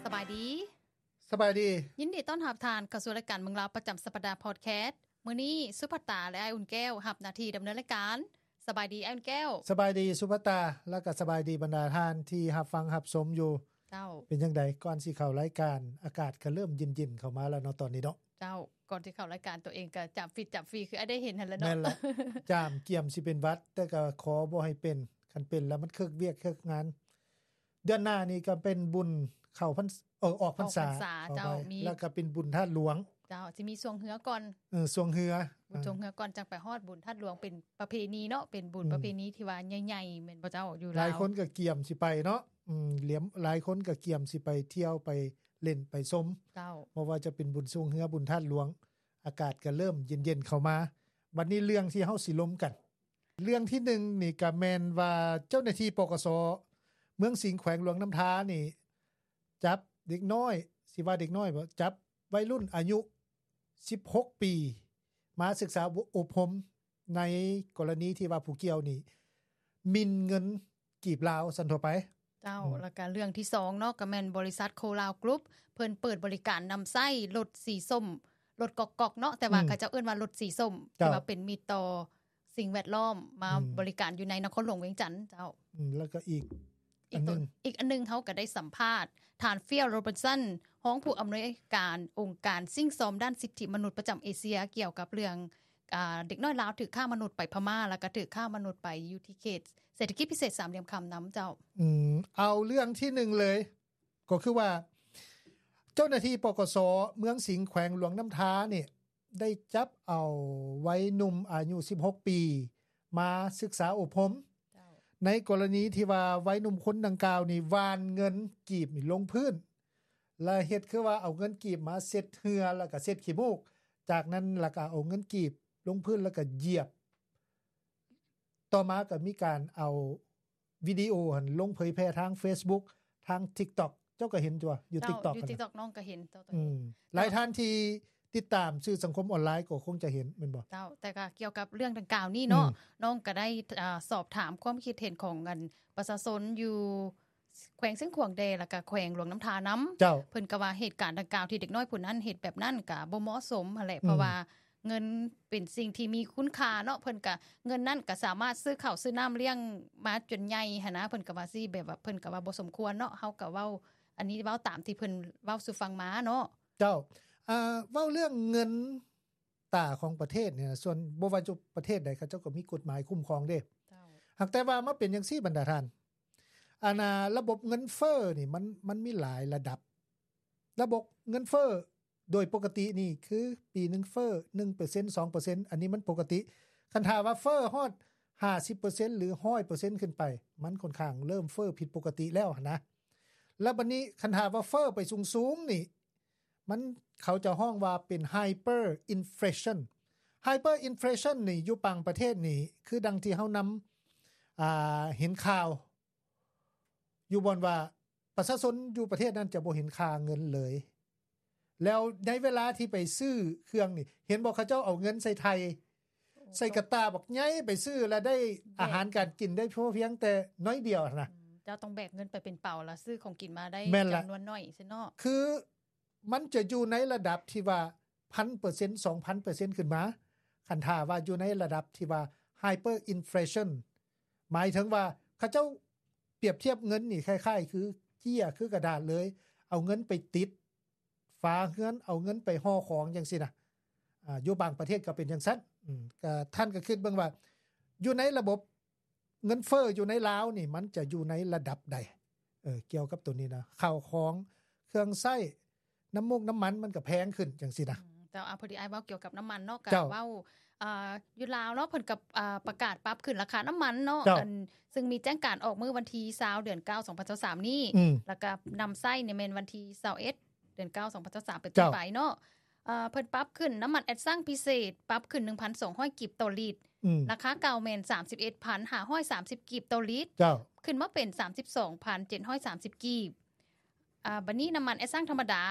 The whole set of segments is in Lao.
ສະບາຍດີ ສະບາຍດີ ຍິນດີຕ້ອນຮັບທ່ານເຂົ້າສູ່ລາຍການເມືອງລາວປະຈຳສັບປະດາພອດແຄສ. ມື້ນີ້ສຸພັດຕາ ແລະ ອ້າຍອຸ່ນແກ້ວຮັບໜ້າທີ່ດຳເນີນລາຍການ. ສະບາຍດີອ້າຍອຸ່ນແກ້ວ. ສະບາຍດີສຸພັດຕາ ແລະ ກໍສະບາຍດີບັນດາທ່ານທີ່ຮັບຟັງຮັບຊົມຢູ່. ເຈົ້າ ເປັນຈັ່ງໃດ ກ່ອນຊິເຂົ້າລາຍການ ອາກາດກໍເລີ່ມເຢັນໆເຂົ້າມາແລ້ວເນາະ ຕອນນີ້ເນາະ. ເຈົ້າ ກ່ອນຊິເຂົ້າລາຍການ ຕົວເອງກໍຈາມຟິດຈາມຟີ ຄືອ້າຍໄດ້ເຫັນຫັ້ນແຫຼະເນາະ. ແມ່ນລະ ຈາມກຽມຊິເປັນຫວັດ ແຕ່ກໍຂໍບໍ່ໃຫ້ເປັນ. ຄັນເປັນແລ້ວມັນເຄີກວຽກເຄີກງານ. ເດືອນໜ້ານີ້ກໍເປັນບຸນເຂົ້າພັນ ເອີ ອອກພັນສາ ອອກພັນສາ ເຈົ້າ ມີ ແລ້ວກໍເປັນບຸນທາດຫຼວງ. ເຈົ້າ ຊິມີຊ່ວງເຮືອກ່ອນ. ເອີ ຊ່ວງເຮືອ ບຸນ ອ່າ ຊ່ວງເຮືອກ່ອນ ຈັ່ງໄປຮອດບຸນທາດຫຼວງ. ເປັນປະເພນີເນາະ ເປັນບຸນ ອືມ ປະເພນີທີ່ວ່າໃຫຍ່ໆ ແມ່ນບໍ່ເຈົ້າ ຢູ່ລາວ? ຫຼາຍຄົນກໍກຽມຊິໄປເນາະ. ອືມ ຫຼຽມ ຫຼາຍຄົນກໍກຽມຊິໄປທ່ຽວໄປຫຼິ້ນໄປຊົມ. ເຈົ້າ ບໍ່ວ່າຈະເປັນບຸນຊ່ວງເຮືອ ບຸນທາດຫຼວງ. ອາກາດກໍເລີ່ມເຢັນໆເຂົ້າມາ. ບັດນີ້ເລື່ອງທີ່ເຮົາຊິລົມກັນ ເລື່ອງທີໜຶ່ງນີ້ກໍແມ່ນວ່າເຈົ້າໜ້າທີ່ ປກສ ເມືອງສິງ ແຂວງຫຼວງນ້ຳທານີ້ ຈັບເດັກນ້ອຍ ຊິວ່າເດັກນ້ອຍບໍ່ ຈັບໄວລຸ້ນອາຍຸສິບຫົກປີ ມາສຶກສາອົບຮົມ ໃນກໍລະນີທີ່ວ່າຜູ້ກ່ຽວນີ້ໝິ່ນເງິນ ກີບລາວຊັ້ນທົ່ວໄປ. ເຈົ້າ ອືມ ແລ້ວກະເລື່ອງທີສອງເນາະ ກະແມ່ນບໍລິສັດໂຄລາວກຣຸບ ເພິ່ນເປີດບໍລິການນຳໃຊ້ລົດສີສົ້ມ ລົດກອກໆເນາະ ແຕ່ວ່າ ອືມ ເຂົາເຈົ້າເອີ້ນວ່າລົດສີສົ້ມ ເຈົ້າ ທີ່ວ່າເປັນມິດຕໍ່ສິ່ງແວດລ້ອມ ມາ ອືມ ບໍລິການຢູ່ໃນນະຄອນຫຼວງວຽງຈັນ. ເຈົ້າ ອືມ ແລ້ວກໍອີກ ອີກອັນໜຶ່ງ ອີກອັນໜຶ່ງ ເຮົາກໍໄດ້ສຳພາດທ່ານ Phil Robertson ຮອງຜູ້ອຳນວຍການອົງການສິ່ງຊອມດ້ານສິດທິມະນຸດປະຈຳເອເຊຍ ກ່ຽວກັບເລື່ອງ ອາ ເດັກນ້ອຍລາວຖືກຄ້າມະນຸດໄປພະມ້າ ແລ້ວກໍຖືກຄ້າມະນຸດໄປຢູ່ທີ່ເຂດເສດຖະກິດພິເສດສາມຫຼ່ຽມຄຳນຳເຈົ້າ. ອືມ ເອົາເລື່ອງທີໜຶ່ງເລີຍ ກໍຄືວ່າເຈົ້າໜ້າທີ່ ປກສ ເມືອງສິງ ແຂວງຫຼວງນ້ຳທານີ້ ໄດ້ຈັບເອົາໄວໜຸ່ມອາຍຸສິບຫົກປີ ມາສຶກສາອົບຮົມ. ເຈົ້າ ໃນກໍລະນີທີ່ວ່າໄວໜຸ່ມຄົນດັ່ງກ່າວນີ້ຫວ່ານເງິນກີບນີ້ລົງພື້ນ ແລະ ເຮັດຄືວ່າເອົາເງິນກີບມາເຊັດເຫື່ອ ແລ້ວກໍເຊັດຂີ້ມູກ ຈາກນັ້ນແລ້ວກໍເອົາເງິນກີບລົງພື້ນ ແລ້ວກໍຢຽບ. ຕໍ່ມາກໍມີການເອົາວິດີໂອຫັ້ນລົງເຜີຍແຜ່ທາງ Facebook ທາງ TikTok ເຈົ້າກໍເຫັນຕົວະ ຢູ່ TikTok ຢູ່ TikTok ນ້ອງກໍເຫັນຕົວ ອືມ ຫຼາຍທ່ານທີ່ຕິດຕາມສື່ສັງຄົມອອນລາຍກໍຄົງຈະເຫັນແມ່ນບໍ່? ເຈົ້າ ແຕ່ກໍກ່ຽວກັບເລື່ອງດັ່ງກ່າວນີ້ເນາະ ອືມ ນ້ອງກໍໄດ້ ອາ ສອບຖາມຄວາມຄິດເຫັນຂອງອັນປະຊາຊົນຢູ່ ແຂວງຊຽງຂວາງແດ່ ແລ້ວກະແຂວງຫຼວງນ້ຳທານຳ. ເຈົ້າ ເພິ່ນກໍວ່າເຫດການດັ່ງກ່າວທີ່ເດັກນ້ອຍຜູ້ນັ້ນເຮັດແບບນັ້ນກະບໍ່ເໝາະສົມຫັ້ນແຫຼະ ອືມ ເພາະວ່າເງິນເປັນສິ່ງທີ່ມີຄຸນຄ່າເນາະ ເພິ່ນກະ ເງິນນັ້ນກະສາມາດຊື້ເຂົ້າຊື້ນ້ຳລ້ຽງມາຈົນໃຫຍ່ຫັ້ນນະ ເພິ່ນກະວ່າຊີ້ ແບບວ່າເພິ່ນກະວ່າບໍ່ສົມຄວນເນາະ ເຮົາກະເວົ້າ ອັນນີ້ເວົ້າຕາມທີ່ເພິ່ນເວົ້າສູ່ຟັງມາເນາະ. ເຈົ້າ ເວົ້າເລື່ອງເງິນ ຕາຂອງປະເທດນີ້ນະ ສ່ວນບໍ່ວ່າຈະປະເທດໃດ ເຂົາເຈົ້າກໍມີກົດໝາຍຄຸ້ມຄອງເດ້. ເຈົ້າ ຫາກແຕ່ວ່າມາເປັນຈັ່ງຊີ້ບັນດາທ່ານ ອັນນ່າ ລະບົບເງິນເຟີ້ນີ້ ມັນ ມັນມີຫຼາຍລະດັບ. ລະບົບເງິນເຟີ້ໂດຍປົກກະຕິນີ້ ຄືປີໜຶ່ງເຟີ້ໜຶ່ງເປີເຊັນ ສອງເປີເຊັນ ອັນນີ້ມັນປົກກະຕິ. ຄັນຖ້າວ່າເຟີ້ຮອດຫ້າສິບເປີເຊັນ ຫຼື ຮ້ອຍເປີເຊັນຂຶ້ນໄປ ມັນຂ້ອນຂ້າງເລີ່ມເຟີ້ຜິດປົກກະຕິແລ້ວຫັ້ນນະ. ແລ້ວບັດນີ້ຄັນຖ້າວ່າເຟີ້ໄປສູງໆນີ້ ມັນ ເຂົາຈະຮ້ອງວ່າເປັນ hyperinflation. Hyperinflation ນີ້ຢູ່ບາງປະເທດນີ້ ຄືດັ່ງທີ່ເຮົານຳ ອ່າ ເຫັນຂ່າວຢູ່ບ່ອນວ່າປະຊາຊົນຢູ່ປະເທດນັ້ນຈະບໍ່ເຫັນຄ່າເງິນເລີຍ. ແລ້ວໃນເວລາທີ່ໄປຊື້ເຄື່ອງນີ້ ເຫັນບໍ່ ເຂົາເຈົ້າເອົາເງິນໃສ່ໄຖ່ ໃສ່ກະຕ່າບັກໃຫຍ່ໄປຊື້ ແລ້ວໄດ້ອາຫານການກິນໄດ້ພໍພຽງແຕ່ໜ້ອຍດຽວຫັ້ນນະ. ອືມ ເຈົ້າຕ້ອງແບກເງິນໄປເປັນເປົາ ແລ້ວຊື້ຂອງກິນມາໄດ້ ແມ່ນລະ ຈຳນວນໜ້ອຍຊັ້ນເນາະ. ຄື ມັນຈະຢູ່ໃນລະດັບທີ່ວ່າພັນເປີເຊັນ ສອງພັນເປີເຊັນຂຶ້ນມາ ຄັນຖ້າວ່າຢູ່ໃນລະດັບທີ່ວ່າ hyperinflation ໝາຍເຖິງວ່າເຂົາເຈົ້າປຽບທຽບເງິນນີ້ຄ້າຍໆຄືເຈ້ຍ ຄືກະດາດເລີຍ ເອົາເງິນໄປຕິດຝາເຮືອນ ເອົາເງິນໄປຫໍ່ຂອງຈັ່ງຊີ້ນະ. ອາ ຢູ່ບາງປະເທດກໍເປັນຈັ່ງຊັ້ນ. ອືມ ກໍທ່ານກໍຄິດເບິ່ງວ່າຢູ່ໃນລະບົບ ເງິນເຟີ້ຢູ່ໃນລາວນີ້ ມັນຈະຢູ່ໃນລະດັບໃດ? ເອີ ກ່ຽວກັບໂຕນີ້ນະ ເຂົ້າຂອງ ເຄື່ອງໃຊ້ ນ້ຳມູກນ້ຳມັນມັນກໍແພງຂຶ້ນຈັ່ງຊີ້ນະ. ອືມ ເຈົ້າ ອາ ພໍດີອ້າຍເວົ້າກ່ຽວກັບນ້ຳມັນເນາະ ກໍ ເຈົ້າ ເວົ້າ ອ່າ ຢູ່ລາວເນາະ ເພິ່ນກໍ ອ່າ ປະກາດປັບຂຶ້ນລາຄານ້ຳມັນເນາະ. ເຈົ້າ ອັນ ຊຶ່ງມີແຈ້ງການອອກມື້ວັນທີຊາວ ເດືອນເກົ້າ ສອງພັນຊາວສາມນີ້ ອືມ ແລ້ວກໍນຳໃຊ້ນີ້ແມ່ນວັນທີຊາວເອັດ ເດືອນເກົ້າ ສອງພັນຊາວສາມ ເປັນຕົ້ນໄປເນາະ. ເຈົ້າ ເອີ ເພິ່ນປັບຂຶ້ນ ນ້ຳມັນແອັດຊັງພິເສດປັບຂຶ້ນໜຶ່ງພັນສອງຮ້ອຍກີບຕໍ່ລິດ. ອືມ ລາຄາເກົ່າແມ່ນສາມສິບເອັດພັນຫ້າຮ້ອຍສາມສິບກີບຕໍ່ລິດ. ເຈົ້າ ຂຶ້ນມາເປັນສາມສິບສອງພັນເຈັດຮ້ອຍສາມສິບກີບ. ອາ ບັດນີ້ນ້ຳມັນແອັດຊັງທຳມະດາ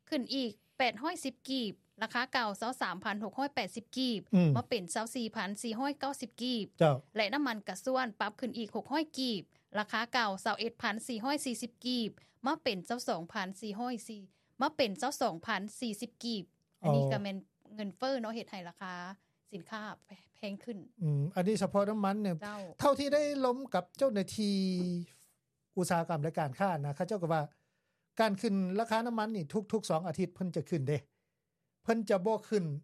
ຂຶ້ນອີກແປດຮ້ອຍສິບກີບ ລາຄາເກົ່າ ຊາວສາມພັນຫົກຮ້ອຍແປດສິບກີບ ອືມ ມາເປັນ ຊາວສີ່ພັນສີ່ຮ້ອຍເກົ້າສິບກີບ ເຈົ້າ ແລະ ນ້ຳມັນກະຊວນປັບຂຶ້ນອີກ ຫົກຮ້ອຍກີບ ລາຄາເກົ່າ ຊາວເອັດພັນສີ່ຮ້ອຍສີ່ສິບກີບ ມາເປັນ ຊາວສອງພັນສີ່ຮ້ອຍສີ່ ມາເປັນ ຊາວສອງພັນສີ່ສິບກີບ. ອັນນີ້ ອໍ ກໍແມ່ນເງິນເຟີ້ເນາະ ເຮັດໃຫ້ລາຄາສິນຄ້າແພງຂຶ້ນ. ອືມ ອັນນີ້ສະເພາະນ້ຳມັນນີ້ ເຈົ້າ ເທົ່າທີ່ໄດ້ລົມກັບເຈົ້າໜ້າທີ່ອຸດສາຫະກຳ ແລະ ການຄ້ານະ ເຂົາເຈົ້າກໍວ່າ ການຂຶ້ນລາຄານ້ຳມັນນີ້ ທຸກໆສອງອາທິດເພິ່ນຈະຂຶ້ນເດ້ ເພິ່ນຈະບໍ່ຂຶ້ນ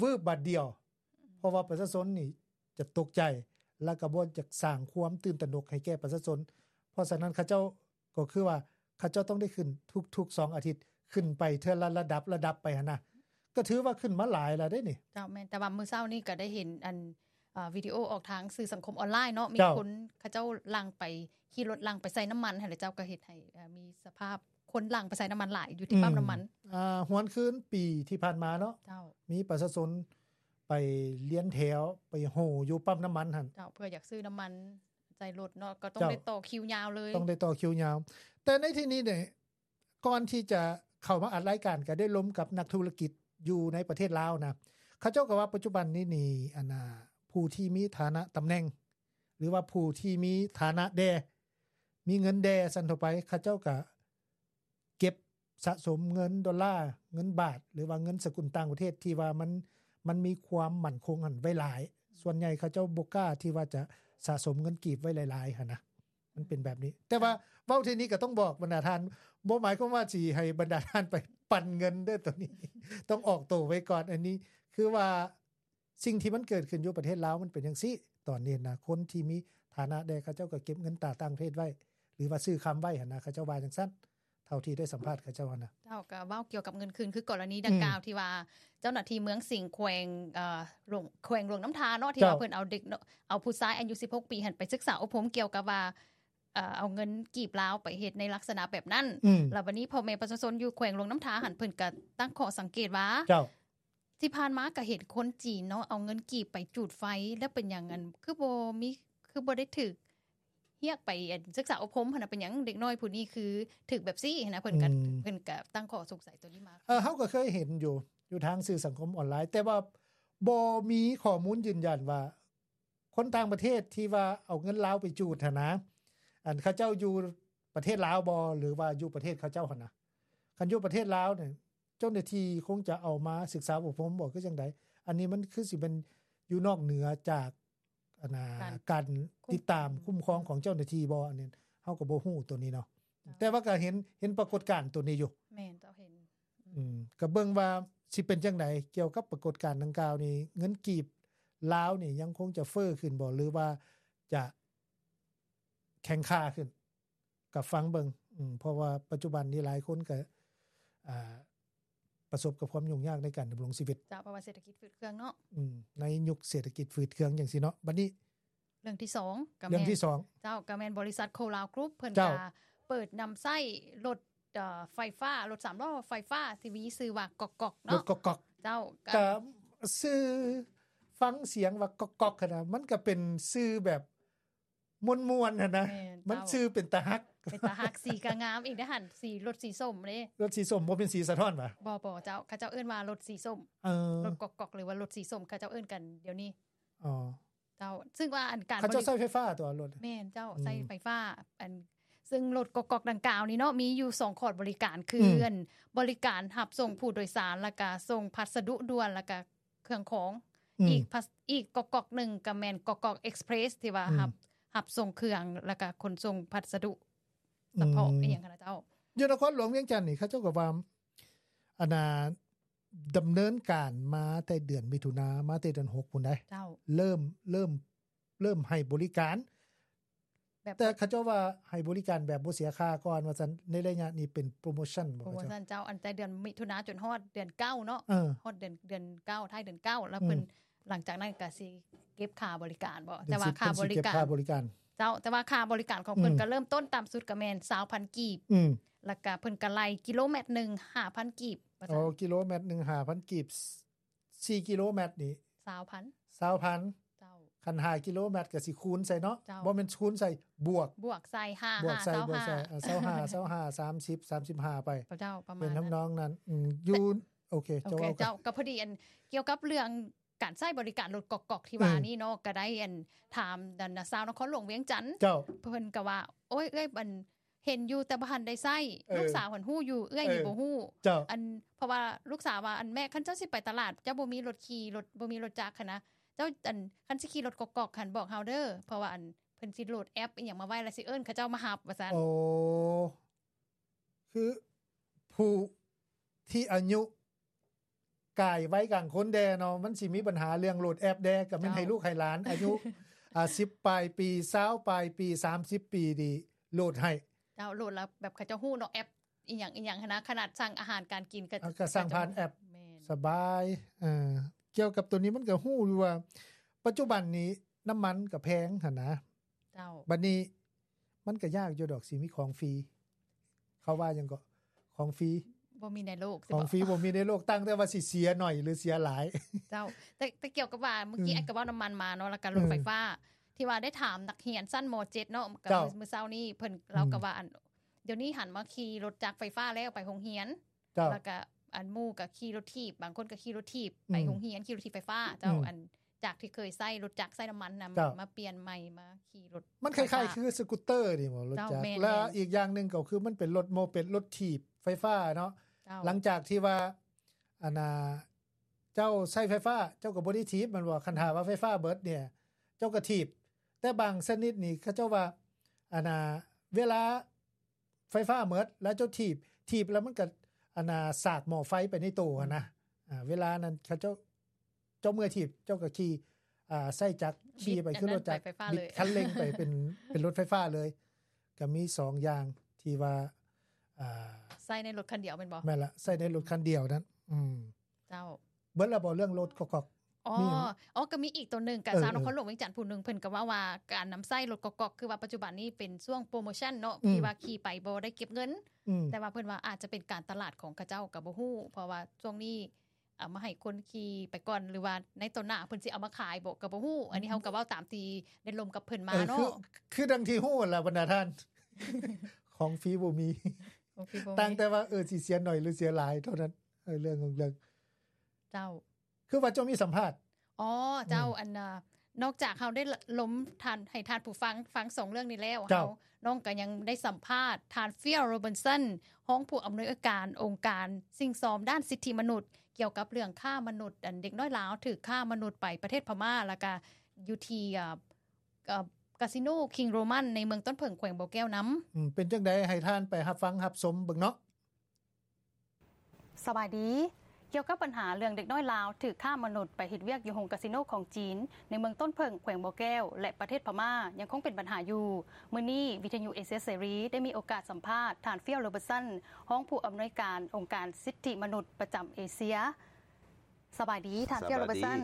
ວືບບາດດຽວ ເພາະວ່າປະຊາຊົນນີ້ຈະຕົກໃຈ ແລ້ວກໍບໍ່ຢາກສ້າງຄວາມຕື່ນຕະໜົກໃຫ້ແກ່ປະຊາຊົນ. ເພາະສະນັ້ນເຂົາເຈົ້າກໍຄືວ່າ ເຂົາເຈົ້າຕ້ອງໄດ້ຂຶ້ນທຸກໆສອງອາທິດ ຂຶ້ນໄປເທື່ອລະລະດັບ ລະດັບໄປຫັ້ນນະ ກໍຖືວ່າຂຶ້ນມາຫຼາຍແລ້ວເດ້ນີ້. ເຈົ້າ ແມ່ນ ແຕ່ວ່າມື້ເຊົ້ານີ້ກໍໄດ້ເຫັນອັນ ເອີ ວິດີໂອອອກທາງສື່ສັງຄົມອອນລາຍເນາະ ມີ ເຈົ້າ ຄົນເຂົາເຈົ້າຫຼັ່ງໄປ ຂີ່ລົດຫຼັ່ງໄປໃສ່ນ້ຳມັນຫັ້ນແຫຼະເຈົ້າ ກໍເຮັດໃຫ້ ເອີ ມີສະພາບຄົນຫຼັ່ງໄປໃສ່ນ້ຳມັນຫຼາຍຢູ່ທີ່ ອືມ ປ້ຳນ້ຳມັນ. ອ່າ ຫວນຄືນປີທີ່ຜ່ານມາເນາະ ເຈົ້າ ມີປະຊາຊົນໄປລຽນແຖວ ໄປໂຫຢູ່ປ້ຳນ້ຳມັນຫັ້ນ ເຈົ້າ ເພື່ອຢາກຊື້ນ້ຳມັນໃສ່ລົດເນາະ ກໍຕ້ອງ ເຈົ້າ ໄດ້ຕໍ່ຄິວຍາວເລີຍ ຕ້ອງໄດ້ຕໍ່ຄິວຍາວ. ແຕ່ໃນທີ່ນີ້ນີ້ ກ່ອນທີ່ຈະເຂົ້າມາອັດລາຍການ ກໍໄດ້ລົມກັບນັກທຸລະກິດຢູ່ໃນປະເທດລາວນະ ເຂົາເຈົ້າກໍວ່າປັດຈຸບັນນີ້ນີ້ ອັນນ່າ ຜູ້ທີ່ມີຖານະຕຳແໜ່ງ ຫຼືວ່າຜູ້ທີ່ມີຖານະແດ່ ມີເງິນແດ່ຊັ້ນທົ່ວໄປ ເຂົາເຈົ້າກໍເກັບສະສົມເງິນໂດລາ ເງິນບາດ ຫຼືວ່າເງິນສະກຸນຕ່າງປະເທດທີ່ວ່າມັນ ມັນມີຄວາມໝັ້ນຄົງຫັ້ນໄວ້ຫຼາຍ. ສ່ວນໃຫຍ່ເຂົາເຈົ້າບໍ່ກ້າທີ່ວ່າຈະສະສົມເງິນກີບໄວ້ຫຼາຍໆຫັ້ນນະ. ມັນເປັນແບບນີ້ ແຕ່ວ່າເວົ້າເທື່ອນີ້ກໍຕ້ອງບອກບັນດາທ່ານ ບໍ່ໝາຍຄວາມວ່າຊິໃຫ້ບັນດາທ່ານໄປປັນເງິນເດີ້ ໂຕນີ້ຕ້ອງອອກໂຕໄວ້ກ່ອນ. ອັນນີ້ຄືວ່າສິ່ງທີ່ມັນເກີດຂຶ້ນຢູ່ປະເທດລາວມັນເປັນຈັ່ງຊີ້ ຕອນນີ້ນະ ຄົນທີ່ມີຖານະແດ່ ເຂົາເຈົ້າກໍເກັບເງິນຕາຕ່າງປະເທດໄວ້ ຫຼືວ່າຊື້ຄຳໄວ້ຫັ້ນນະ ເຂົາເຈົ້າວ່າຈັ່ງຊັ້ນ ເທົ່າທີ່ໄດ້ສຳພາດເຂົາເຈົ້າຫັ້ນນະ. ເຈົ້າ ກໍເວົ້າກ່ຽວກັບເງິນຄືນ ຄືກໍລະນີດັ່ງກ່າວ ອືມ ທີ່ວ່າເຈົ້າໜ້າທີ່ເມືອງສິງ ແຂວງ ເອີ ຫຼວງ ແຂວງຫຼວງນ້ຳທາເນາະ ທີ່ວ່າ ເຈົ້າ ເພິ່ນເອົາເດັກ ເອົາຜູ້ຊາຍອາຍຸສິບຫົກປີຫັ້ນໄປສຶກສາອົບຮົມກ່ຽວກັບວ່າ ເອີ ເອົາເງິນກີບລາວໄປເຮັດໃນລັກສະນະແບບນັ້ນ ອືມ ແລ້ວບັດນີ້ພໍ່ແມ່ປະຊາຊົນຢູ່ແຂວງຫຼວງນ້ຳທາຫັ້ນ ເພິ່ນກໍຕັ້ງຂໍ້ສັງເກດວ່າ ເຈົ້າ ທີ່ຜ່ານມາກໍເຫັນຄົນຈີນເນາະ ເອົາເງິນກີບໄປຈູດໄຟ ແລ້ວເປັນຫຍັງ ອັນ ຄືບໍ່ມີ ຄືບໍ່ໄດ້ຖືກຮຽກໄປ ອັນ ສຶກສາອົບຮົມຫັ້ນນະ ເປັນຫຍັງເດັກນ້ອຍຜູ້ນີ້ຄືຖືກແບບຊີ້ຫັ້ນນະ ເພິ່ນກໍ ອືມ ເພິ່ນກໍຕັ້ງຂໍ້ສົງໄສໂຕນີ້ມາ. ເອີ ເຮົາກໍເຄີຍເຫັນຢູ່ ຢູ່ທາງສື່ສັງຄົມອອນລາຍ ແຕ່ວ່າບໍ່ມີຂໍ້ມູນຢືນຢັນວ່າ ຄົນຕ່າງປະເທດທີ່ວ່າເອົາເງິນລາວໄປຈູດຫັ້ນນະ ອັນ ເຂົາເຈົ້າຢູ່ປະເທດລາວບໍ່ ຫຼືວ່າຢູ່ປະເທດເຂົາເຈົ້າຫັ້ນນະ. ຄັນຢູ່ປະເທດລາວນີ້ ເຈົ້າໜ້າທີ່ຄົງຈະເອົາມາສຶກສາອົບຮົມບໍ່ ຄືຈັ່ງໃດ? ອັນນີ້ມັນຄືຊິແມ່ນຢູ່ນອກເໜືອຈາກ ອັນນ່າ ການ ການຕິດຕາມຄຸ້ມຄອງຂອງເຈົ້າໜ້າທີ່ບໍ່? ອັນນີ້ເຮົາກໍບໍ່ຮູ້ໂຕນີ້ເນາະ ເຈົ້າ ແຕ່ວ່າກໍເຫັນ ເຫັນປາກົດການໂຕນີ້ຢູ່. ແມ່ນ ເຈົ້າ ເຫັນ ອືມ ກໍເບິ່ງວ່າຊິເປັນຈັ່ງໃດກ່ຽວກັບປາກົດການດັ່ງກ່າວນີ້ ເງິນກີບລາວນີ້ຍັງຄົງຈະເຟີ້ຂຶ້ນບໍ່ ຫຼືວ່າຈະແຂງຄ່າຂຶ້ນ ກໍຟັງເບິ່ງ ອືມ ເພາະວ່າປັດຈຸບັນນີ້ຫຼາຍຄົນກໍ ອ່າ ປະສົບກັບຄວາມຫຍຸ້ງຍາກໃນການດຳລົງຊີວິດ. ເຈົ້າ ເພາະວ່າເສດຖະກິດຝືດເຄືອງເນາະ. ອືມ ໃນຍຸກເສດຖະກິດຝືດເຄືອງຈັ່ງຊີ້ເນາະ. ບັດນີ້ເລື່ອງທີສອງ ກໍແມ່ນ ເລື່ອງທີສອງ ເຈົ້າ ກໍແມ່ນບໍລິສັດໂຄລາວກຣຸບ ເພິ່ນ ເຈົ້າ ກໍເປີດນຳໃຊ້ລົດ ເອີ ໄຟຟ້າ ລົດສາມລໍ້ໄຟຟ້າທີ່ມີຊື່ວ່າກອກໆເນາະ. ລົດກອກໆ ເຈົ້າ ກໍ ກໍຊື່ ຟັງສຽງວ່າກອກໆຫັ້ນນະ ມັນກໍເປັນຊື່ແບບ ມ່ວນໆຫັ້ນນະ. ແມ່ນ ມັນ ເຈົ້າ ຊື່ເປັນຕາຮັກ ເປັນຕາຮັກ ສີກໍງາມອີກເດ້ຫັ້ນ ສີ ລົດສີສົ້ມເດ້. ລົດສີສົ້ມບໍ່ແມ່ນສີສະທ້ອນຫວາ? ບໍ່ໆ ເຈົ້າ ເຂົາເຈົ້າເອີ້ນວ່າລົດສີສົ້ມ. ເອີ ລົດກອກໆ ຫຼືວ່າລົດສີສົ້ມ ເຂົາເຈົ້າເອີ້ນກັນດຽວນີ້. ອໍ ເຈົ້າ ຊຶ່ງວ່າອັນການ ເຂົາເຈົ້າ ບໍລິ ໃຊ້ໄຟຟ້າຕົວະລົດ. ແມ່ນເຈົ້າ ອືມ ໃຊ້ໄຟຟ້າ. ອັນ ຊຶ່ງລົດກອກໆດັ່ງກ່າວນີ້ເນາະ ມີຢູ່ສອງຂອດບໍລິການ ຄື ອືມ ອັນ ບໍລິການຮັບສົ່ງຜູ້ໂດຍສານ ແລ້ວກະສົ່ງພັດສະດຸດ່ວນ ແລ້ວກະ ເຄື່ອງຂອງ ອືມ ອີກ ອີກກອກໆໜຶ່ງກໍແມ່ນກອກໆເອັກສະເພຣສ ທີ່ວ່າ ອືມ ຮັບ ຮັບສົ່ງເຄື່ອງ ແລ້ວກໍຂົນສົ່ງພັດສະດຸສະເພາະ ອືມ ອີ່ຫຍັງຫັ້ນນະເຈົ້າ. ຢູ່ນະຄອນຫຼວງວຽງຈັນນີ້ ເຂົາເຈົ້າກໍວ່າ ອັນນ່າ ດຳເນີນການມາແຕ່ເດືອນມິຖຸນາ ມາແຕ່ເດືອນຫົກພຸ້ນໃດ໋ ເຈົ້າ ເລີ່ມ ເລີ່ມ ເລີ່ມໃຫ້ບໍລິການ ແບບ ແຕ່ເຂົາເຈົ້າວ່າໃຫ້ບໍລິການແບບບໍ່ເສຍຄ່າກ່ອນວ່າຊັ້ນ ໃນໄລຍະນີ້ເປັນໂປຣໂມຊັນບໍ່? ໂປຣໂມຊັນເຈົ້າ ອັນແຕ່ເດືອນມິຖຸນາຈົນຮອດເດືອນເກົ້າເນາະ ເອີ ຮອດເດືອນ ເດືອນເກົ້າ ທ້າຍເດືອນເກົ້າ ແລ້ວເພິ່ນ ອືມ ຫຼັງຈາກນັ້ນກໍຊິເກັບຄ່າບໍລິການບໍ່? ແຕ່ວ່າຄ່າບໍລິການ ເຈົ້າ ແຕ່ວ່າຄ່າບໍລິການຂອງເພິ່ນ ອືມ ກໍເລີ່ມຕົ້ນຕ່ຳສຸດກໍແມ່ນຊາວພັນກີບ ອືມ ແລ້ວກໍເພິ່ນກໍໄລ່ກິໂລແມັດໜຶ່ງຫ້າພັນກີບວ່າຊັ້ນ. ອໍ ກິໂລແມັດໜຶ່ງຫ້າພັນກີບ ສີ່ກິໂລແມັດນີ້ ຊາວພັນ ຊາວພັນ ເຈົ້າ ຄັນຫ້າກິໂລແມັດກໍຊິຄູນໃສ່ເນາະ ເຈົ້າ ບໍ່ແມ່ນຄູນໃສ່ ບວກ ບວກໃສ່ ຫ້າ ບວກໃສ່ ຫ້າ ຊາວຫ້າ ບວກໃສ່ ເອີ ຊາວຫ້າ ຊາວຫ້າ ສາມສິບ ສາມສິບຫ້າໄປ ເຈົ້າ ປະມານ ເປັນທຳນອງນັ້ນ ອືມ ຢູ່ ໂອເຄ ໂອເຄ ເຈົ້າ ເຈົ້າ ກໍພໍດີອັນ ກ່ຽວກັບເລື່ອງການໃຊ້ບໍລິການລົດກອກໆທີ່ວ່ານີ້ເນາະ ກໍໄດ້ອັນ ຖາມອັນຊາວນະຄອນຫຼວງວຽງຈັນ ເຈົ້າ ເພິ່ນກໍວ່າ ໂອ້ຍ ເອື້ອຍ ອັນ ເຫັນຢູ່ແຕ່ບໍ່ທັນໄດ້ໃຊ້ ເອີ ລູກສາວຫັ້ນຮູ້ຢູ່ ເອື້ອຍນີ້ ເອີ ບໍ່ຮູ້ ເຈົ້າ ອັນ ເພາະວ່າລູກສາວວ່າ ອັນ ແມ່ ຄັນເຈົ້າຊິໄປຕະຫຼາດ ເຈົ້າບໍ່ມີລົດຂີ່ ລົດ ບໍ່ມີລົດຈັກຫັ້ນນະ ເຈົ້າ ອັນ ຄັນຊິຂີ່ລົດກອກໆຫັ້ນ ບອກເຮົາເດີ ເພາະວ່າ ອັນ ເພິ່ນຊິໂຫຼດແອັບອີ່ຫຍັງມາໄວ້ ແລ້ວຊິເອີ້ນເຂົາເຈົ້າມາຮັບ ວ່າຊັ້ນ. ໂອ້ ຄືຜູ້ທີ່ອາຍຸກາຍໄວກາງຄົນແດ່ເນາະ ມັນຊິມີບັນຫາເລື່ອງໂຫຼດແອັບແດ່ ກໍແມ່ນ ເຈົ້າ ໃຫ້ລູກໃຫ້ຫຼານອາຍຸ ອ່າ ສິບປາຍປີ ຊາວປາຍປີ ສາມສິບປີນີ້ໂຫຼດໃຫ້ ເຈົ້າ ໂຫຼດແລ້ວແບບເຂົາເຈົ້າຮູ້ເນາະ ແອັບອີ່ຫຍັງອີ່ຫຍັງຫັ້ນນະ ຂະໜາດສັ່ງອາຫານການກິນກໍ ເອີ ກໍສັ່ງຜ່ານແອັບ ແມ່ນ ສະບາຍ. ເອີ ກ່ຽວກັບໂຕນີ້ມັນກໍຮູ້ຢູ່ວ່າ ປັດຈຸບັນນີ້ນ້ຳມັນກໍແພງຫັ້ນນະ ເຈົ້າ ບັດນີ້ມັນກໍຍາກຢູ່ດອກ ຊິມີຂອງຟຣີ ເຂົາວ່າຫຍັງເກາະ ຂອງຟຣີ ບໍ່ມີໃນໂລກ ຂອງຟຣີບໍ່ມີໃນໂລກ ຕັ້ງແຕ່ວ່າຊິເສຍໜ້ອຍ ຫຼື ເສຍຫຼາຍ. ເຈົ້າ ແຕ່ ແຕ່ກ່ຽວກັບວ່າ ເມື່ອກີ້ ອືມ ອ້າຍກໍເວົ້ານ້ຳມັນມາເນາະ ແລ້ວກໍລົດ ອືມ ໄຟຟ້າ ທີ່ວ່າໄດ້ຖາມນັກຮຽນຊັ້ນ ມ.ເຈັດ ເນາະ ກໍ ເຈົ້າ ມື້ ມື້ເຊົ້ານີ້ ເພິ່ນ ອືມ ເລາກໍວ່າ ອັນ ດຽວນີ້ຫັນມາຂີ່ລົດຈັກໄຟຟ້າແລ້ວ ໄປໂຮງຮຽນ ເຈົ້າ ແລ້ວກໍອັນໝູ່ກໍຂີ່ລົດຖີບ ບາງຄົນກໍຂີ່ລົດຖີບ ອືມ ໄປໂຮງຮຽນ ຂີ່ລົດຖີບໄຟຟ້າ ເຈົ້າ ອືມ ອັນ ຈາກທີ່ເຄີຍໃຊ້ລົດຈັກໃຊ້ນ້ຳມັນນຳ ເຈົ້າ ມາປ່ຽນໃໝ່ມາຂີ່ລົດ ມັນຄ້າຍໆຄືສະກູດເຕີນີ້ບໍ ລົດຈັກ ເຈົ້າ ແມ່ນໆ ແລ້ວອີກຢ່າງໜຶ່ງກໍຄືມັນເປັນລົດໂມເປັດ ລົດຖີບໄຟຟ້າເນາະ ເຈົ້າ ຫຼັງຈາກທີ່ວ່າ ອັນນ່າ ເຈົ້າໃຊ້ໄຟຟ້າ ເຈົ້າກໍບໍ່ໄດ້ຖີບແມ່ນບໍ່ ຄັນຖ້າວ່າໄຟຟ້າເບິດນີ້ ເຈົ້າກໍຖີບ ແຕ່ບາງຊະນິດນີ້ ເຂົາເຈົ້າວ່າ ອັນນ່າ ເວລາ ໄຟຟ້າໝົດ ແລ້ວເຈົ້າຖີບ ຖີບແລ້ວມັນກໍ ອັນນ່າ ສາກໝໍ້ໄຟໄປໃນໂຕຫັ້ນນະ ອືມ ອ່າ ເວລານັ້ນເຂົາເຈົ້າ ເຈົ້າເມື່ອຍຖີບ ເຈົ້າກໍຂີ່ ອ່າ ໃຊ້ຈັກຂີ່ໄປຄືລົດຈັກ ບິດຄັນເລັ່ງໄປເປັນ ເປັນລົດໄຟຟ້າເລີຍ ກໍມີສອງຢ່າງທີ່ວ່າ ອ່າ ໃຊ້ໃນລົດຄັນດຽວແມ່ນບໍ່? ແມ່ນລະ ໃຊ້ໃນລົດຄັນດຽວນັ້ນ ອືມ ເຈົ້າ ເບິດແລ້ວບໍ່ເລື່ອງລົດກອກໆ? ອໍ ມີຫຍັງ? ອໍ ກໍມີອີກໂຕໜຶ່ງ ກະ ເອີ ຊາວນະຄອນຫຼວງວຽງຈັນຜູ້ໜຶ່ງ ເພິ່ນກໍເວົ້າວ່າການນຳໃຊ້ລົດກອກໆ ຄືວ່າປັດຈຸບັນນີ້ເປັນຊ່ວງໂປຣໂມຊັນເນາະ ອືມ ທີ່ວ່າຂີ່ໄປບໍ່ໄດ້ເກັບເງິນ ອືມ ແຕ່ວ່າເພິ່ນວ່າອາດຈະເປັນການຕະຫຼາດຂອງເຂົາເຈົ້າກໍບໍ່ຮູ້ ເພາະວ່າຊ່ວງນີ້ເອົາມາໃຫ້ຄົນຂີ່ໄປກ່ອນ ຫຼືວ່າໃນຕໍ່ໜ້າເພິ່ນຊິເອົາມາຂາຍບໍ່ກໍບໍ່ຮູ້ ອັນນີ້ເຮົາກໍເວົ້າຕາມທີ່ໄດ້ລົມກັບເພິ່ນມາເນາະ ເອີ ຄື ຄືດັ່ງທີ່ຮູ້ຫັ້ນລະບັນດາທ່ານ ຂອງຟຣີບໍ່ມີ ຂອງຟຣີບໍ່ມີ ຕັ້ງແຕ່ວ່າ ເອີ ຊິເສຍໜ້ອຍ ຫຼື ເສຍຫຼາຍເທົ່ານັ້ນ ເອີ ເລື່ອງຂອງເລື່ອງ ເຈົ້າ ຄືວ່າເຈົ້າມີສຳພາດ ອໍ ເຈົ້າ ອືມ ອັນ ນອກຈາກເຮົາໄດ້ລົມທ່ານ ໃຫ້ທ່ານຜູ້ຟັງຟັງສອງເລື່ອງນີ້ແລ້ວ ເຈົ້າ ເຮົາ ນ້ອງກໍຍັງໄດ້ສຳພາດທ່ານ Phil Robertson ຮອງຜູ້ອຳນວຍການອົງການສິ່ງຊອມດ້ານສິດທິມະນຸດ ກ່ຽວກັບເລື່ອງຄ້າມະນຸດ ອັນເດັກນ້ອຍລາວຖືກຄ້າມະນຸດໄປປະເທດພະມ້າ ແລ້ວກະຢູ່ທີ່ ເອີ ເອີ ກາສິໂນ King Roman ໃນເມືອງຕົ້ນເຜິ້ງ ແຂວງບໍ່ແກ້ວນຳ. ອືມ ເປັນຈັ່ງໃດ ໃຫ້ທ່ານໄປຮັບຟັງຮັບຊົມເບິ່ງເນາະ. ສະບາຍດີ. ກ່ຽວກັບບັນຫາເລື່ອງເດັກນ້ອຍລາວຖືກຄ້າມະນຸດໄປເຮັດວຽກຢູ່ໂຮງກາສິໂນຂອງຈີນ ໃນເມືອງຕົ້ນເຜິ້ງ ແຂວງບໍ່ແກ້ວ ແລະ ປະເທດພະມ້າ ຍັງຄົງເປັນບັນຫາຢູ່. ມື້ນີ້ ວິທະຍຸເອເຊຍເສລີ ໄດ້ມີໂອກາດສຳພາດທ່ານ Phil Robertson ຮອງຜູ້ອຳນວຍການອົງການສິດທິມະນຸດປະຈຳເອເຊຍ. ສະບາຍດີທ່ານ Phil Robertson.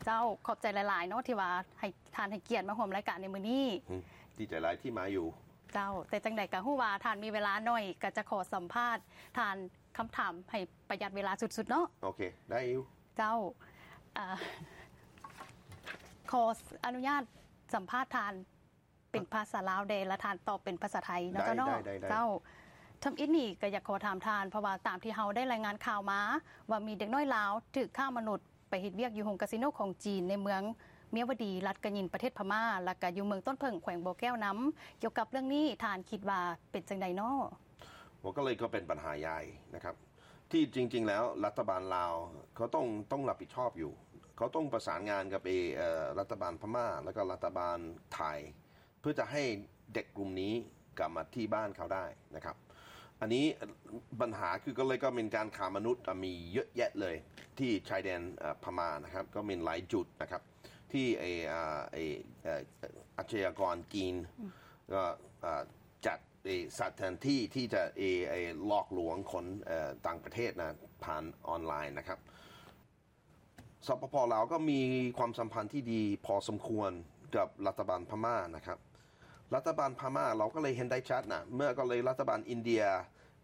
ເຈົ້າ ຂອບໃຈຫຼາຍໆເນາະ ທີ່ວ່າໃຫ້ ທ່ານໃຫ້ກຽດມາຮ່ວມລາຍການໃນມື້ນີ້. ອືມ ດີໃຈຫຼາຍທີ່ມາຢູ່. ເຈົ້າ ແຕ່ຈັ່ງໃດກໍຮູ້ວ່າທ່ານມີເວລາໜ້ອຍ ກໍຈະຂໍສຳພາດທ່ານຄຳຖາມໃຫ້ປະຢັດເວລາສຸດໆເນາະ. ໂອເຄ ໄດ້ຢູ່. ເຈົ້າ ເອີ ຂໍອະນຸຍາດສຳພາດທ່ານເປັນພາສາລາວແດ່ ແລະ ທ່ານຕອບເປັນພາສາໄທເນາະ. ໄດ້ ເຈົ້າເນາະ. ໄດ້ ໄດ້ ເຈົ້າ ທຳອິດນີ້ກໍຢາກຂໍຖາມທ່ານ ເພາະວ່າຕາມທີ່ເຮົາໄດ້ລາຍງານຂ່າວມາ ວ່າມີເດັກນ້ອຍລາວຖືກຄ້າມະນຸດ ໄປເຮັດວຽກຢູ່ໂຮງກາສິໂນຂອງຈີນໃນເມືອງມຽວະດີ ລັດກະຍິນ ປະເທດພະມ້າ ແລ້ວກະຢູ່ເມືອງຕົ້ນເຜິ້ງ ແຂວງບໍ່ແກ້ວນຳ. ກ່ຽວກັບເລື່ອງນີ້ ທ່ານຄິດວ່າເປັນຈັ່ງໃດເນາະ? ວ່າກໍເລີຍກໍເປັນບັນຫາໃຫຍ່ນະຄັບ ທີ່ຈິງໆແລ້ວລັດຖະບານລາວເຂົາຕ້ອງ ຕ້ອງຮັບຜິດຊອບຢູ່ ເຂົາຕ້ອງປະສານງານກັບ ເອີ ລັດຖະບານພະມ້າ ແລ້ວກໍລັດຖະບານໄທ ເພື່ອຈະໃຫ້ເດັກກຸ່ມນີ້ກັບມາທີ່ບ້ານເຂົາໄດ້ນະຄັບ. ອັນນີ້ບັນຫາຄືກໍເລີຍກໍເປັນການຄ້າມະນຸດ ອາ ມີເຍອະແຍະເລີຍທີ່ຊາຍແດນ ເອີ ພະມ້ານະຄັບ ກໍມີຫຼາຍຈຸດນະຄັບ ທີ່ ເອີ ອາ ເອີ ອາ ອາຊະຍາກອນຈີນ ອືມ ກໍ ອາ ຈັດ ເອີ ສະຖານທີ່ທີ່ຈະ ເອີ ເອີ ຫຼອກລວງຄົນ ເອີ ຕ່າງປະເທດນະ ຜ່ານອອນລາຍນະຄັບ. ສປປ ລາວກໍມີຄວາມສຳພັນທີ່ດີພໍສົມຄວນກັບລັດຖະບານພະມ້ານະຄັບ. ລັດຖະບານພະມ້າ ເຮົາກໍເລີຍເຫັນໄດ້ຊັດນະ ເມື່ອກໍເລີຍລັດຖະບານອິນເດຍ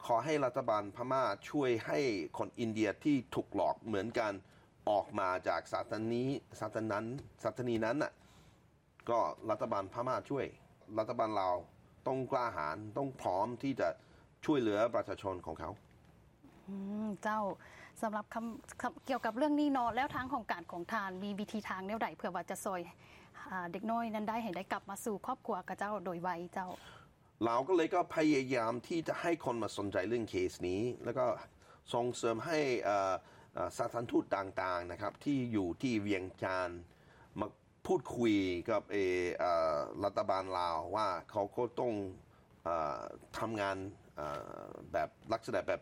ຂໍໃຫ້ລັດຖະບານພະມ້າຊ່ວຍໃຫ້ຄົນອິນເດຍທີ່ຖືກຫຼອກເໝືອນກັນ ອອກມາຈາກສະຖານີ ສະຖານ ສະຖານີນັ້ນນະ. ກໍລັດຖະບານພະມ້າຊ່ວຍ ລັດຖະບານລາວຕ້ອງກ້າຫານ ຕ້ອງພ້ອມທີ່ຈະຊ່ວຍເຫຼືອປະຊາຊົນຂອງເຂົາ. ອືມ ເຈົ້າ. ສຳລັບຄຳ ຄຳ ກ່ຽວກັບເລື່ອງນີ້ເນາະ ແລ້ວທາງຫ້ອງການຂອງທ່ານມີວິທີທາງແນວໃດ ເພື່ອວ່າຈະຊ່ອຍ ອາ ເດັກນ້ອຍນັ້ນໄດ້ ໃຫ້ໄດ້ກັບມາສູ່ຄອບຄົວເຂົາເຈົ້າໂດຍໄວເຈົ້າ? ລາວກໍເລີຍກໍພະຍາຍາມທີ່ຈະໃຫ້ຄົນມາສົນໃຈເລື່ອງເຄສນີ້ ແລ້ວກໍສົ່ງເສີມໃຫ້ ເອີ ເອີ ສະຖານທູດຕ່າງໆ ນະຄັບ ທີ່ຢູ່ທີ່ວຽງຈັນ ມາພູດຄຸຍກັບ ເອີ ເອີ ລັດຖະບານລາວວ່າເຂົາກໍຕ້ອງ ເອີ ທຳງານ ເອີ ແບບລັກສະນະແບບ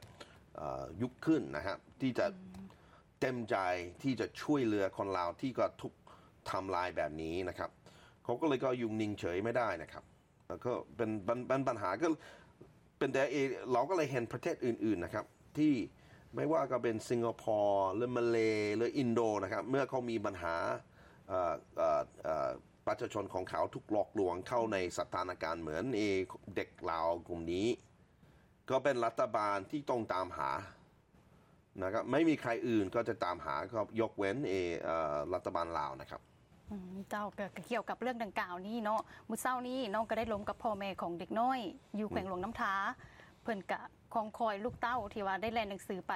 ເອີ ຍຸກຂຶ້ນນະຄັບ ທີ່ຈະ ອືມ ເຕັມໃຈທີ່ຈະຊ່ວຍເຫຼືອຄົນລາວທີ່ກໍຖືກທຳລາຍແບບນີ້ນະຄັບ ເຂົາກໍເລີຍກໍຢູ່ນິ່ງເສີຍໄມ່ໄດ້ນະຄັບ ແລ້ວກໍເປັນ ເປັນ ເປັນບັນຫາ ກໍເປັນແຕ່ ເອ ລາວກໍເລີຍເຫັນປະເທດອື່ນໆ ນະຄັບ ທີ່ໄມ່ວ່າກໍເປັນສິງກະພໍ ຫຼື ມາເລ ຫຼື ອິນໂດ ນະຄັບ ເມື່ອເຂົາມີບັນຫາ ເອີ ເອີ ເອີ ປະຊາຊົນຂອງເຂົາຖືກຫຼອກລວງເຂົ້າໃນສະຖານະການເໝືອນ ເອ ເດັກລາວກຸ່ມນີ້ ກໍເປັນລັດຖະບານທີ່ຕ້ອງຕາມຫານະຄັບ ໄມ່ມີໃຄອື່ນກໍຈະຕາມຫາ ກໍຍົກເວັ້ນ ເອ ເອີ ລັດຖະບານລາວນະຄັບ. ອືມ ເຈົ້າ ກໍ ກໍກ່ຽວກັບເລື່ອງດັ່ງກ່າວນີ້ເນາະ ມື້ເຊົ້ານີ້ນ້ອງກໍໄດ້ລົມກັບພໍ່ແມ່ຂອງເດັກນ້ອຍຢູ່ ອືມ ແຂວງຫຼວງນ້ຳທາ ເພິ່ນກະຄອງຄອຍລູກເຕົ້າທີ່ວ່າໄດ້ແລ່ນໜັງສືໄປ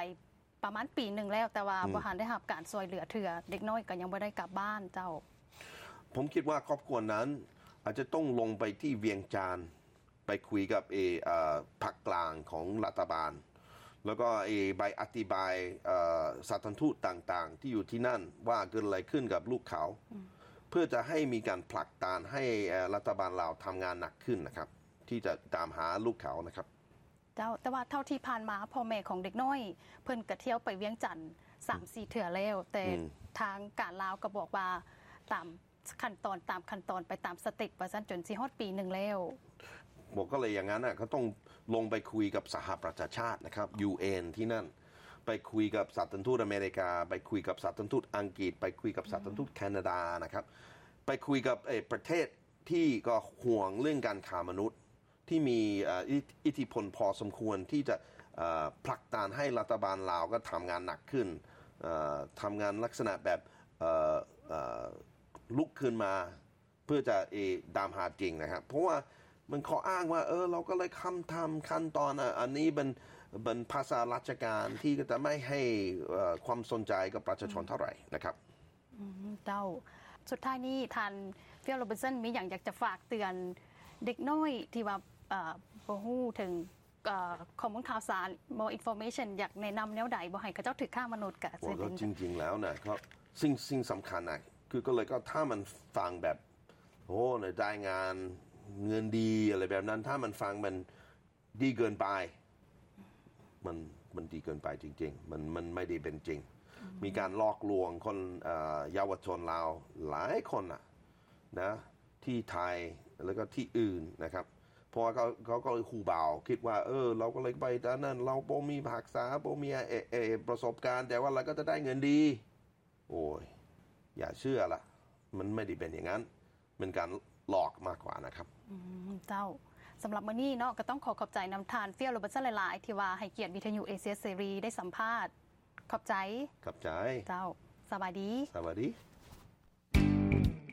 ປະມານປີໜຶ່ງແລ້ວ ແຕ່ວ່າ ອືມ ບໍ່ທັນໄດ້ຮັບການຊ່ວຍເຫຼືອເທື່ອ ເດັກນ້ອຍກໍຍັງບໍ່ໄດ້ກັບບ້ານເຈົ້າ. ຜົມຄິດວ່າຄອບຄົວນັ້ນອາດຈະຕ້ອງລົງໄປທີ່ວຽງຈັນ ໄປຄຸຍກັບ ເອ ເອີ ພາກກາງຂອງລັດຖະບານ ແລ້ວກໍ ເອ ໃບອະທິບາຍ ເອີ ສະຖານທູດຕ່າງໆ ທີ່ຢູ່ທີ່ນັ້ນວ່າເກີດອະໄລຂຶ້ນກັບລູກເຂົາ ອືມ ເພື່ອຈະໃຫ້ມີການຜັກດັນໃຫ້ ເອີ ລັດຖະບານລາວທຳງານໜັກຂຶ້ນນະຄັບ ທີ່ຈະຕາມຫາລູກເຂົານະຄັບ. ເຈົ້າ ແຕ່ວ່າເທົ່າທີ່ຜ່ານມາພໍ່ແມ່ຂອງເດັກນ້ອຍເພິ່ນກະທ່ຽວໄປວຽງຈັນສາມສີ່ເທື່ອແລ້ວ ອືມ ແຕ່ ອືມ ທາງການລາວກໍບອກວ່າຕາມ ຂັ້ນຕອນ ຕາມຂັ້ນຕອນໄປຕາມສະເຕັບວ່າຊັ້ນ ຈົນຊິຮອດປີໜຶ່ງແລ້ວ. ບອກກໍເລີຍຢ່າງນັ້ນນະ ກໍຕ້ອງລົງໄປຄຸຍກັບສະຫະປະຊາຊາດນະຄັບ ຢູເອັນ ທີ່ນັ້ນ ໄປຄຸຍກັບສະຖານທູດອາເມລິກາ ໄປຄຸຍກັບສະຖານທູດອັງກິດ ໄປຄຸຍກັບສະຖານທູດ ອືມ ແຄນາດານະຄັບ ໄປຄຸຍກັບ ເອີ ປະເທດທີ່ກໍຫ່ວງເລື່ອງການຄ້າມະນຸດ ທີ່ມີ ເອີ ອິດ ອິດທິພົນພໍສົມຄວນທີ່ຈະ ເອີ ຜັກດັນໃຫ້ລັດຖະບານລາວກໍທຳງານໜັກຂຶ້ນ ເອີ ທຳງານລັກສະນະແບບ ເອີ ເອີ ລຸກຂຶ້ນມາເພື່ອຈະ ເອ ຕາມຫາຈິງນະຄັບ ເພາະວ່າມັນຂໍ້ອ້າງວ່າ ເອີ ລາວກໍເລີຍທຳຕາມຂັ້ນຕອນ ອາ ອັນນີ້ເປັນ ເປັນພາສາລາຊະການທີ່ກໍຈະໄມ່ໃຫ້ ເອີ ຄວາມສົນໃຈກັບປະຊາຊົນເທົ່າໃດນະຄັບ. ອືມ ເຈົ້າ ສຸດທ້າຍນີ້ທ່ານ Phil Robertson ມີຫຍັງຢາກຈະຝາກເຕືອນເດັກນ້ອຍທີ່ວ່າ ເອີ ບໍ່ຮູ້ເຖິງ ເອີ ຂໍ້ມູນຂ່າວສານ more information ຢາກແນະນຳແນວໃດບໍ່ໃຫ້ເຂົາເຈົ້າຖືກຄ້າມະນຸດກະ ໂອ້ ກໍຈິງໆແລ້ວນະ ກໍສິ່ງ ສິ່ງສຳຄັນນະ ຄືກໍເລີຍກໍຖ້າມັນຟັງແບບ ໂອ້ ໃນລາຍງານເງິນດີ ອະໄລແບບນັ້ນ ຖ້າມັນຟັງມັນ ດີເກີນໄປ ມັນ ມັນດີເກີນໄປຈິງໆ ມັນ ມັນໄມ່ໄດ້ເປັນຈິງ ອືມ ມີການຫຼອກລວງຄົນ ເອີ ເຍົາວະຊົນລາວຫຼາຍຄົນນະ ນະ ທີ່ໄທ ແລ້ວກໍທີ່ອື່ນນະຄັບ ເພາະວ່າເຂົາ ເຂົາກໍຮູ້ເບົາ ຄິດວ່າ ເອີ ລາວກໍເລີຍໄປຕາມນັ້ນ ລາວບໍ່ມີທັກສະ ບໍ່ມີ ເອ ເອ ປະສົບການ ແຕ່ວ່າລາວກໍຈະໄດ້ເງິນດີ. ໂອ້ຍ ຢ່າເຊື່ອລະ ມັນໄມ່ໄດ້ເປັນຢ່າງນັ້ນ ເປັນການຫຼອກມາກກວ່ານະຄັບ. ອືມ ເຈົ້າ ສຳລັບມື້ນີ້ເນາະ ກໍຕ້ອງຂໍຂອບໃຈນຳທ່ານ Phil Robertson ຫຼາຍໆ ທີ່ວ່າໃຫ້ກຽດວິທະຍຸເອເຊຍເສລີໄດ້ສຳພາດ. ຂອບໃຈ. ຂອບໃຈ. ເຈົ້າ ສະບາຍດີ. ສະບາຍດີ.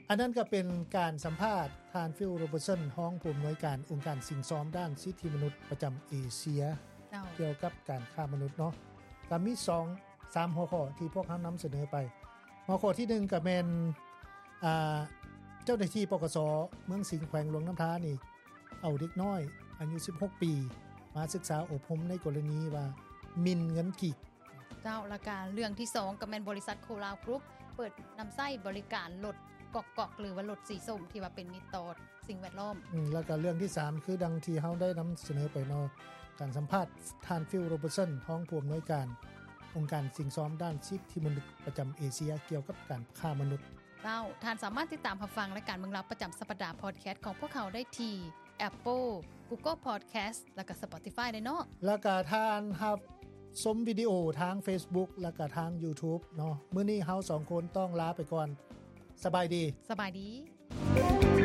ອັນນັ້ນກໍເປັນການສຳພາດທ່ານ Phil Robertson ຮອງຜູ້ອຳນວຍການອົງການສິ່ງຊອມດ້ານສິດທິມະນຸດປະຈຳເອເຊຍ ເຈົ້າ ກ່ຽວກັບການຄ້າມະນຸດເນາະ. ກໍມີສອງ ສາມຫົວຂໍ້ທີ່ພວກເຮົານຳສະເໜີໄປ. ຫົວຂໍ້ທີໜຶ່ງກໍແມ່ນ ອ່າ ເຈົ້າໜ້າທີ່ ປກສ ເມືອງສິງ ແຂວງຫຼວງນ້ຳທານີ້ ເອົາເດັກນ້ອຍອາຍຸສິບຫົກປີ ມາສຶກສາອົບຮົມໃນກໍລະນີວ່າໝິ່ນເງິນກີບ. ເຈົ້າ ແລ້ວກະເລື່ອງທີສອງກໍແມ່ນບໍລິສັດໂຄລາວກຣຸບ ເປີດນຳໃຊ້ບໍລິການລົດກອກໆ ຫຼືວ່າລົດສີສົ້ມ ທີ່ວ່າເປັນມິດຕໍ່ ສິ່ງແວດລ້ອມ. ອືມ ແລ້ວກໍເລື່ອງທີສາມ ຄືດັ່ງທີ່ເຮົາໄດ້ນຳສະເໜີໄປເນາະ ການສຳພາດທ່ານ Phil Robertson ຮອງຜູ້ອຳນວຍການອົງການສິ່ງຊອມດ້ານສິດທິມະນຸດປະຈຳເອເຊຍ ກ່ຽວກັບການຄ້າມະນຸດ. ເຈົ້າ ທ່ານສາມາດຕິດຕາມຮັບຟັງລາຍການເມືອງລາວປະຈຳສັບປະດາ podcast ຂອງພວກເຮົາໄດ້ທີ່ Apple, Google Podcast ແລ້ວກໍ Spotify ໄດ້ເນາະ. ແລ້ວກໍທ່ານຮັບຊົມວິດີໂອທາງ Facebook ແລ້ວກໍທາງ YouTube ເນາະ. ມື້ນີ້ເຮົາສອງຄົນຕ້ອງລາໄປກ່ອນ. ສະບາຍດີ. ສະບາຍດີ.